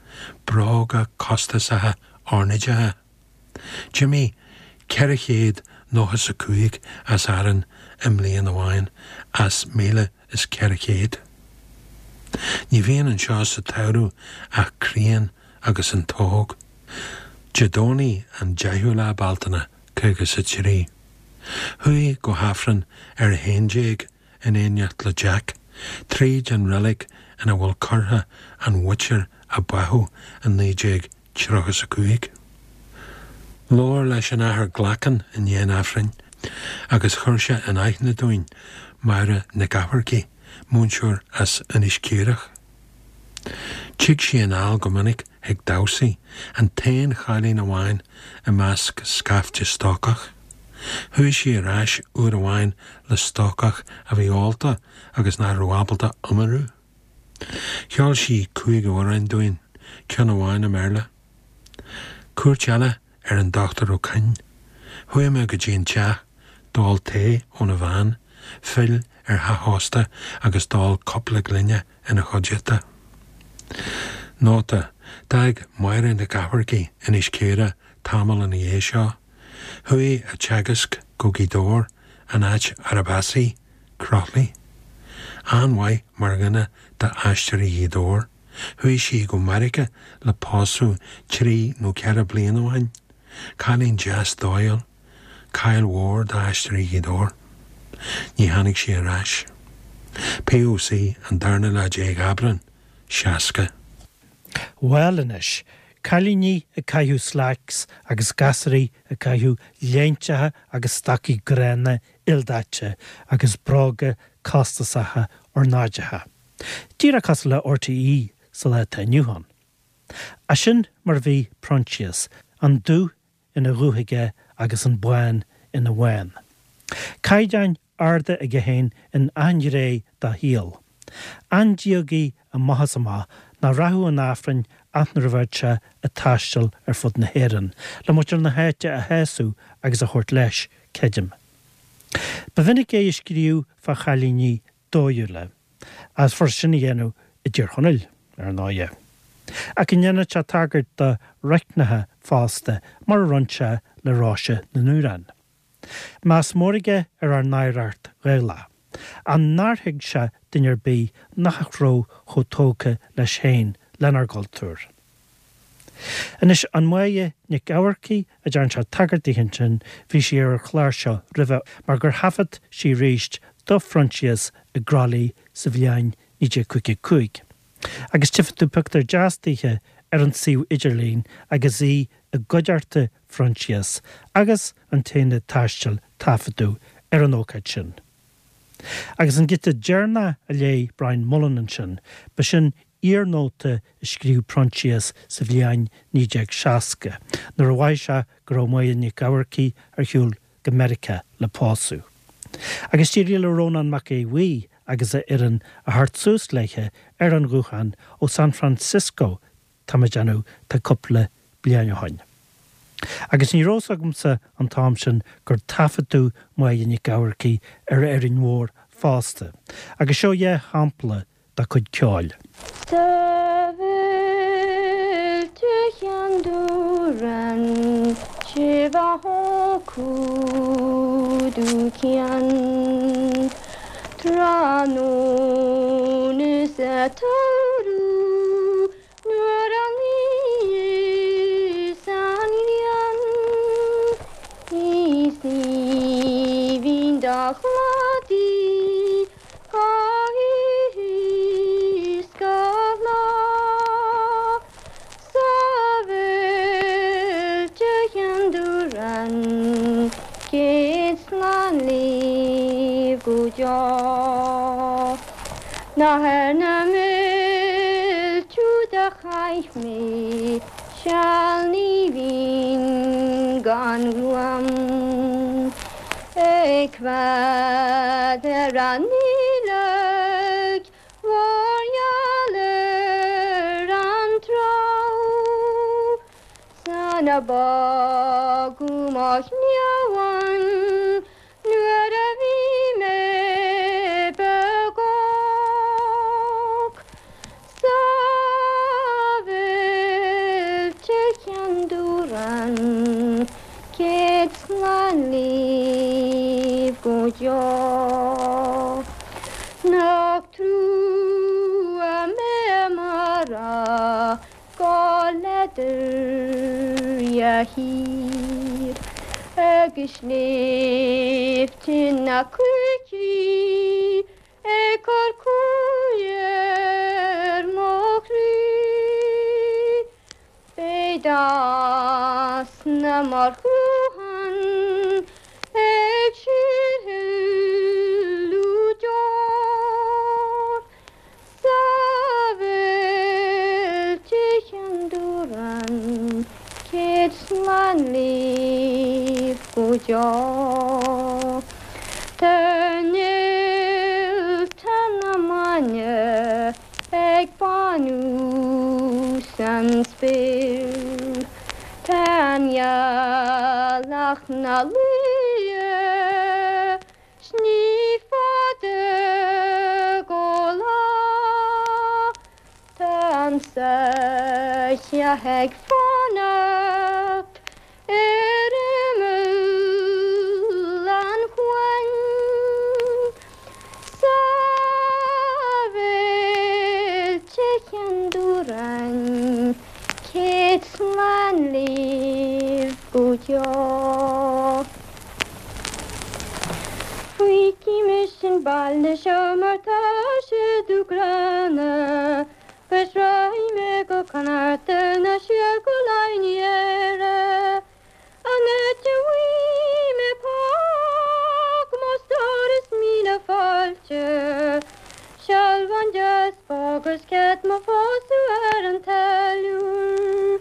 bróga costasacha ornáideacha. D'imigh 495 as Árainn i mbliain amháin as 1,400. Ní bhíonn anseo sa tsamhradh ach críon agus an t-óg. Dé Domhnaigh an 10ú lá Bealtaine, 53. Chuaigh go hAifreann ar a 11 in éineacht le Jack, tríd an reilig ina bhfuil curtha an mhuintir a báthadh i 1935. Labhair leis an Athair Glackin i ndiaidh an Aifrinn agus chuir sé in aithne dúinn Máire Nic Eachmharcaigh, múinteoir as Inis Caorach. Tig sí anall go minic chuig damhsaí, an t-aon chailín amháin i measc scaifte stócach. Chuaigh sí ar ais uair amháin le stócach a bhí ólta agus nach raibh ábalta iomarú. Cheol sí cúig amhrán dúinn, ceann amháin i mBéarla. Cuairt eile ar an Dr Ó Coinn. Chuaigh mé go dtí an teach, d'ól tae óna bhean, phill ar theach ósta agus d'ól cúpla gloine ina chuideachta. Nóta, D'fhág Máire Nic Eachmharcaigh Inis Caorach tamall ina dhiaidh seo. Chuaigh a teagasc go Gaoth Dobhair, an áit arb as í, Croithlí. An-mhaith mar dhuine d'Aisteoirí Ghaoth Dobhair. Chuaigh sí go Meiriceá le pósadh trí nó ceithre bliana ó shin. Cailín deas dóighiúil. Caill mhór d'Aisteoirí Ghaoth Dobhair. Ní tháinig sí ar ais. PÓC an darna lá déag Aibreán, 60. Bhuel anois, cailíní ag caitheamh slacks agus gasraí ag caitheamh léinteacha agus stocaí gránna ildaite agus bróga costasacha ornáideacha. Díreach cosúil le RTÉ sa lá atá inniu ann. Ach sin mar a bhí Proinsias, an dubh ina dhubh aige agus an bán ina bhán. Caighdeáin arda aige féin in achan ghné dá shaol. An-diagaí amach is amach nach rachadh chun Aifrinn ach nuair a bheadh sé ag taisteal ar fud na hÉireann, le muintir na háite a shásamh agus a thabhairt leis, creidim. Ba mhinic é ag scríobh fá chailíní dóighiúla, is furast sin a dhéanamh i dTír Chonaill, ar ndóighe. Ach go ndéanadh sé tagairt do raithneacha fosta, mar a rinne sé le Róise na nDúrán. Meas mór aige ar ár n-oidhreacht Ghaelach, ach nár thuig sé duine ar bith nach raibh chomh tógtha leis féin lenár gcultúr. Anois, an Mháire Nic Eachmharcaigh a dtearn sé tagairt di ansin, bhí sí ar an chlár seo roimhe mar gur thaifead sí arís do Phroinsias i gCroithlí sa bhliain 1955. Agus tchífidh tú pictiúr deas daoithe ar an suíomh idirlín agus í i gcuideachta Phroinsias agus an t-aonad taistil taifeadadh ar an ócáid sin. Agus an giota deireanach a léigh Brian Mullen ansin, ba sin iarnóta a scríobh Proinsias sa bhliain 1960, nuair a mhothaigh sé go raibh Máire Nic Eachmharcaigh ar shiúl go Meiriceá le pósadh. Agus d'éirigh le Rónán Mac Aodha Bhuí agus a fhoireann a theacht suas léithe ar an ghuthán ó San Francisco tá mé ag déanamh tá cúpla bliain ó shoin. Agus ní raibh fhios agamsa an t-am sin gur taifeadadh Máire Nic Eamharcaigh ar Árainn Mhór fosta. Agus seo dheá shampla dá cuid ceoil. Sa bhféilte Cheann Dúrann Sivahokudu Cian Tráthnóna sa tsamhradh nuair a luíos an ghrian Is aoibhinn do chladaí Go hoíche 's go lá Sa bhféilte Cheann Dúrann Céad slán libh go deo. Nach ar na muilte úd a chaith mé seal ní bhínn gan ghruaim. Ag coimheád ar an aoileach mhór gheal ar an trá San a bágadh mo chliabhán nuair a bhí mé beag óg. Sa bhféilte Cheann Dúrann céad slán libh go deo. Nach trua mé mara go leathdhair thiar agus sléibhte na Cruichí Ag cur cumhaidh ar mo chroí. Beidh easna mar chruachan ag síorshileadh deor Sa bhféilte Cheann Dúrann céad slán libh go deo. Tá néalta na maidne ag bánú san spéir. Tá an ghealach 'na luí 's ní fada go lá. Tá an soitheach ag fanacht ar imeall an chuain Sa bhféilte Cheann Dúrainn céad slán libh go deo. Feicfidh mise an baile seo mar tá sé dúghránna 'Gus rachaidh mé go Connachta nó siar go Laighin Éire An áit a bhfaighidh mé póg mo stór is míle fáilte Sealbhán deas bog is cead mo phósadh ar an táilliúir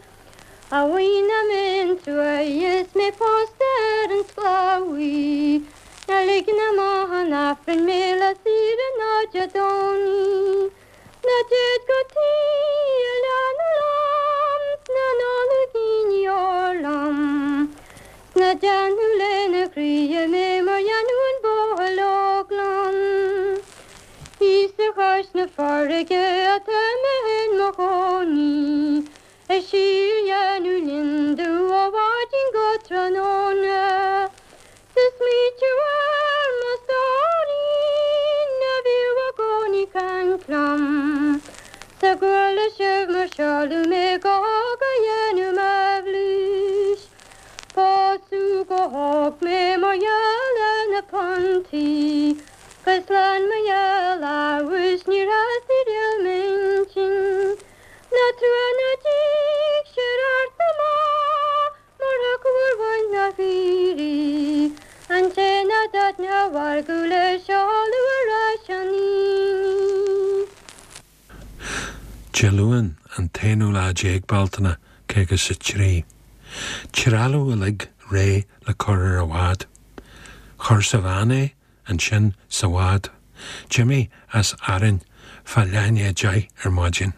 A bhuí na mbeinn truaighe is mé pósta ar an sclábhaí Ná ligean amach an Aifrinn mé lá saoire ná Dé Domhnaigh Ná téid go Tír na Lom 's ná n-ólaigí deoir liom 'S ná déanadh lena chroidhe mé mar dhéanadh an buachaill óg liom. Thíos ar chois na farraige atá mé in mo chónaí Ag síordhéanamh lionndubh ó mhaidin go tráthnóna 'S ag smaoitiú ar mo stóirín a bhíodh i gcónaí caint liom 'S a gcuala sibh mar seoladh mé go hóg a dhéanamh m'aibhléis Pósadh go hóg mé mar gheall ar na puntaí 'Gus lean mo gheall abhus níor theastaigh riamh m'intinn Ná trua ná díg sé ort amach mar thiocfadh ar bhaint na hAoirí an té ná dtaitneodh a mhargadh le seoladh ar ais an aoine. Dé Luain, an t-aonú lá déag Bealtaine, 53. Trealamh uilig réidh le cur ar an bhád. Chuir sa veain é, ansin sa bhád. D'imigh as Árainn fá leath i ndiaidh 10 ar maidin.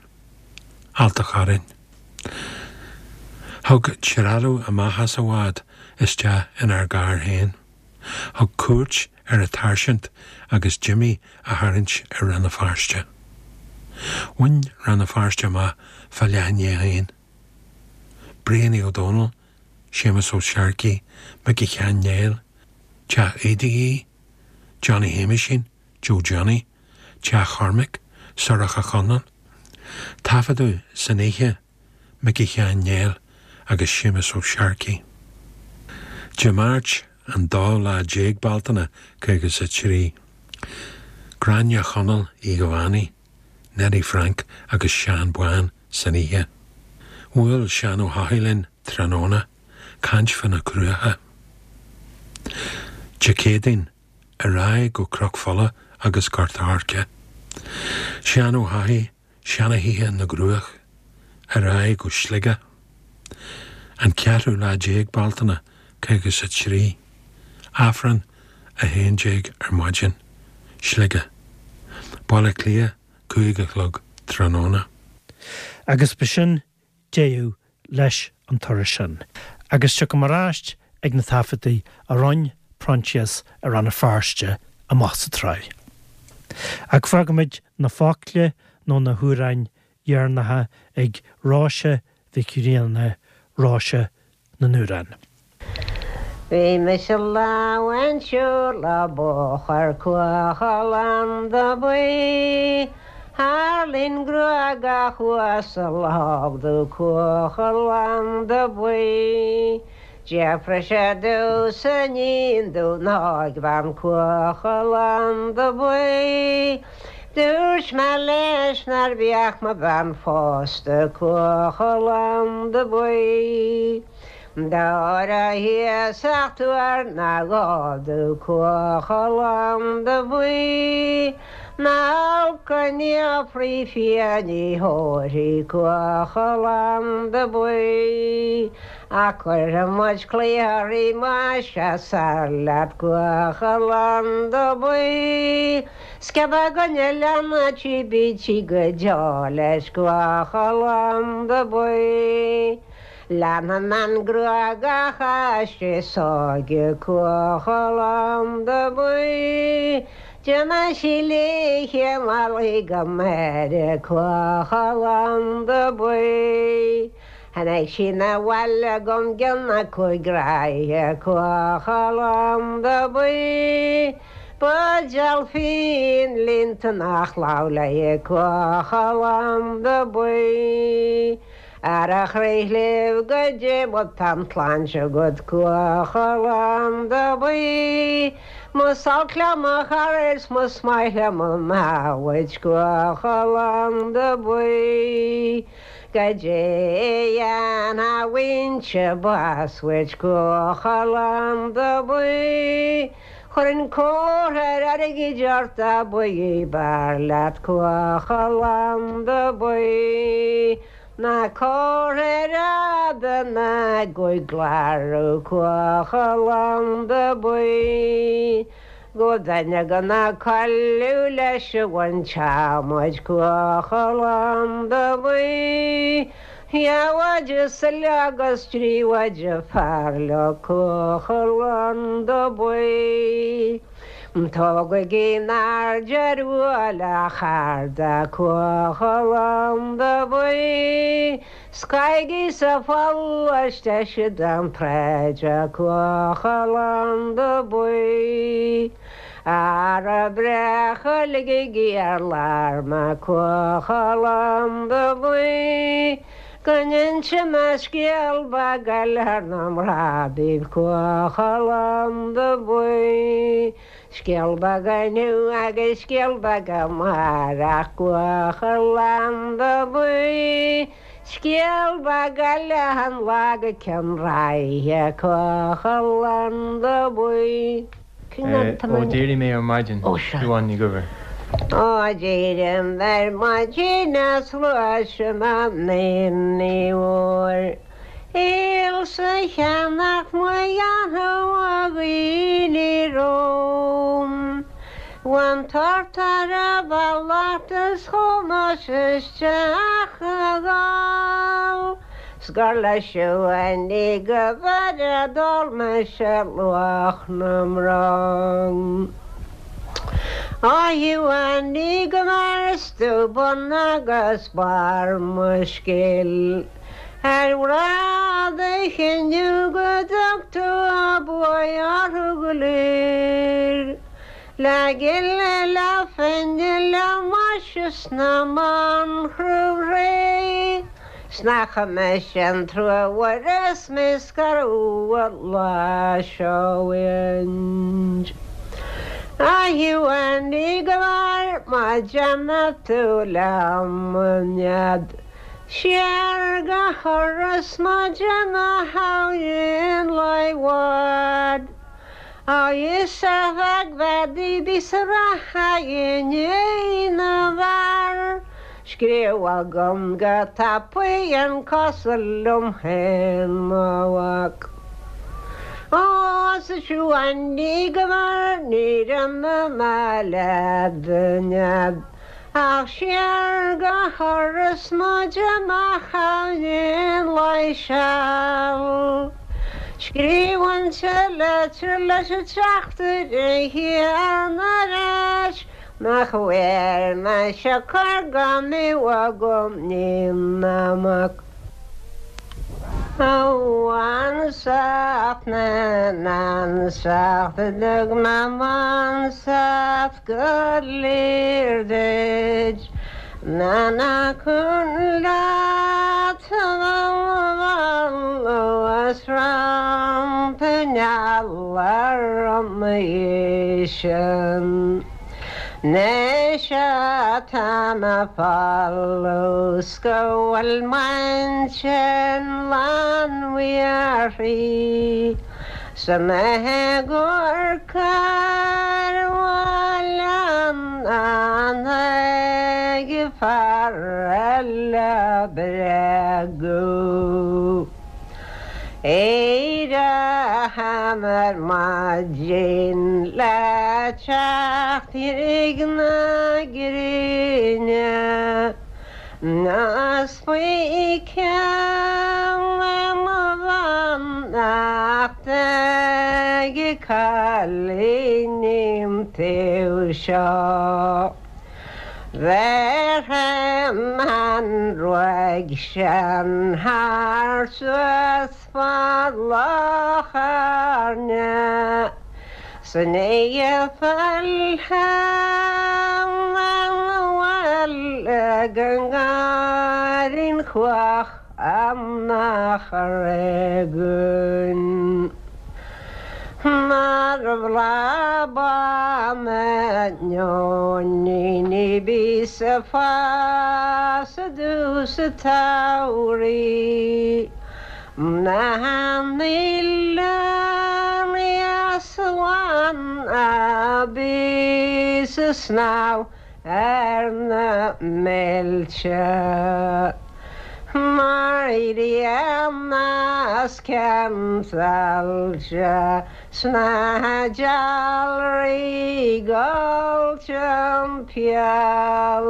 Ailt a' Chorráin. Thug trealamh amach as an bhád isteach inár gcarr féin. Thug cuairt ar an tsáirsint agus Jimmy a tharraingt ar Rann na Feirste. Bhain Rann na Feirste amach fá leath i ndiaidh a haon. Brianaí Ó Dónaill, Séamus Ó Searcaigh, Micí Sheáin Néill, Teach Aoidh Uí, Johnny Shéamaisín, Joe Johnny, Teach Chormaic, Sorcha Chonlon. Taifeadadh san oíche Micí Sheáin Néill agus Séamus Ó Searcaigh. Dé Máirt an dóú lá déag Bealtaine 53. Gráinne Chonaill Uí Dhomhannaigh, Neddy Frank agus Seán Bán san oíche. Bhuail Seán Ó hEochaidh linn tráthnóna, caint fá na Cruacha. Dé Céadaoin, ar aghaidh go Cnoc Fola agus Gort Airce. Seán Ó hEochaidh, Seana-Thithe na gCruach, ar aghaidh go Sligeach. An ceathrú lá déag Bealtaine, 53. Aifreann 11 ar maidin, Sligeach. Baile Átha Cliath, 5 a chlog tráthnóna. Agus b'shin deireadh leis an turas sin. Agus tiocfaidh mé ar ais ag na taifeadtaí a rinne Proinsias i Rann na Feirste amach sa tsraith. Ach fágfaimid na focla nó na hamhráin dheireanacha ag Róise Mhic Grianna, Róise na nAmhrán. Bhí mise lá amháin siúl le bóthar Cuachall Buí Thar linn gruagach uasal thóg do Cuachall Buí D'fhiafraigh sé domhsa iníon dún óigbhean Cuachall Buí Dúirt mé leis nár bhíodh mo bhean phósta Cuachall Buí Dá raibh iasacht uair ná dhó do Cuachall Buí Ná olc an fhiafraí fia ní thabharfaí Cuachall Buí Ach cuirfidh muid claí uirthi más ea soir leat Cuachall Buí Sciob againne leanna tí bídh go deo leis Cuachall Buí Leanfaidh mé an gruagach aisti sóige Cuachall Buí Déanfaidh sí léithe malaí go Máire Cuachall Buí Tháinig sí 'na bhaile agam gcionn na cúig ráithe Cuachall Buí Buidéal fíon líonta nach lamh léi Cuachall Buí Ar a chroí chléibh goidé má tá an tsláinte agat Cuachall Buí Más olc liom mo chara is más maith liom mo namhaid Cuachall Buí Goidé a dhéanfainnse bás uait Cuachall Buí Chuirfinn comhartha airgid ort a buí b'fhearr leat Cuachall Buí ná comhartha ar fhada ná gcuid gclárú Cuachall Buí go duine go ná cailleadh leis a bhain teamaid Cuachall Buí Dhá mhaide sa agus dtrí mhaide fear leo Cuachall Buí. Tógaigí in airde ar bhuaile a charda Cuachall Buí. Scaigí sa pholl is deise den tsráid Cuachall Buí. Ara breacha ligigí ar lár mé Cuachall Buí. Go n-inse mé scéal beag eile thar na mná daoibh Cuachall Buí. Scéal beag inniu agus scéal beag amárach Cuachall Buí. Scéal beag eile an lá go ceann ráithe Cuachall Buí. Ó d'éirigh mé ar maidin, Siobhán Ní Dhuibhir. Ó d'éirigh mé ar maidin is ghluais mé an aon ní mhór. Ailsa cheannacht mo dhéanfadh a dhaoine romham. Bhain tort ar a bhealach is chuaigh mise isteach a dhul 's gur le Siún go bhfeire d'ól mise luach na mbronn. A Shiúin go mair is tú bun agus barr mo scéil. Ar bhreá do chinneadh go dtug tú a buaidh orthu go léir. Le gile, le finne, le maise 's na mbanchruth ré, 's nach mise an trua mhuire 's mé scaradh an lá seo uainn. A Shiúin ní go mair má déanadh tú liom an nead. Siar go hIorras má déanadh thabhainn lá i bhfad. Agus a bheag bheadaí bí sa rath inné na bhfear. Scríobh agam go tapaidh an cosúil liom féin mo mhac. Ó 's a Shiúin ní go mair ní rinne mé leat a nead. Ach siar go hIorras mo amach aon lá seal. Scríobhainnse litir leis an teachtaire chéanna ar ais nach bhfuair mise cor gan mé agam ní na mac. Ansacht na n-ansacht a dtug na m'ansacht go léir duit na na cun leat as rampa nealar sin. Anois atá mé folamh 's go bhfuil m'intinn lán uirthi 's mé ag amharc ar bhaile an ag fear eile bréagadh. Éireoidh ar maidin le teacht na gréine Is faoi cheann mo bheannacht ag cailíní an taobh seo. Bhéarfaidh an ruaig sin thar suas fad Loch Airne 's ní fillfidh an bhaile go nGairrín Chuach nach réigiún. Mar bhla neoiníní bí sa fás i dtús an tsamhraidh. Na n-oileán easbhain a bí sa snámh ar na mílte. Mar dhéanas ceannsailte sna dealraí gol timpeall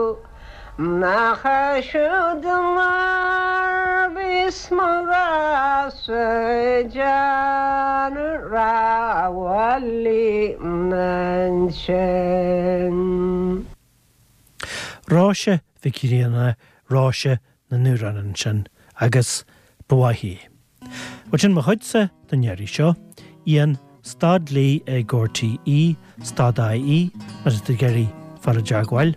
nach siúd mar bhíos mo ghrá-sa déanamh rámhaillí ansin. Róise Mhic Grianna, Róise na n-amhrán ansin, agus ba mhaith í. Bhuel sin mo chuidse don iarraidh seo. Ian, stad lee ag RTÉ, stad IE, má tá tú ag iarraidh fáil i dteagmháil.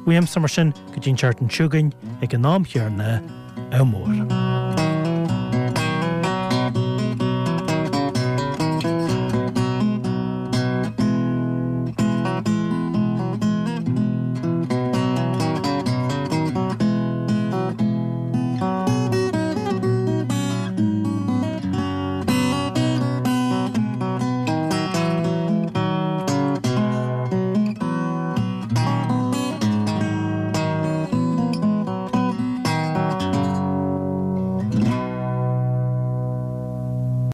Uaimse mar sin go dtí an tseachtain seo chugainn ag an am chéanna, ádh mór.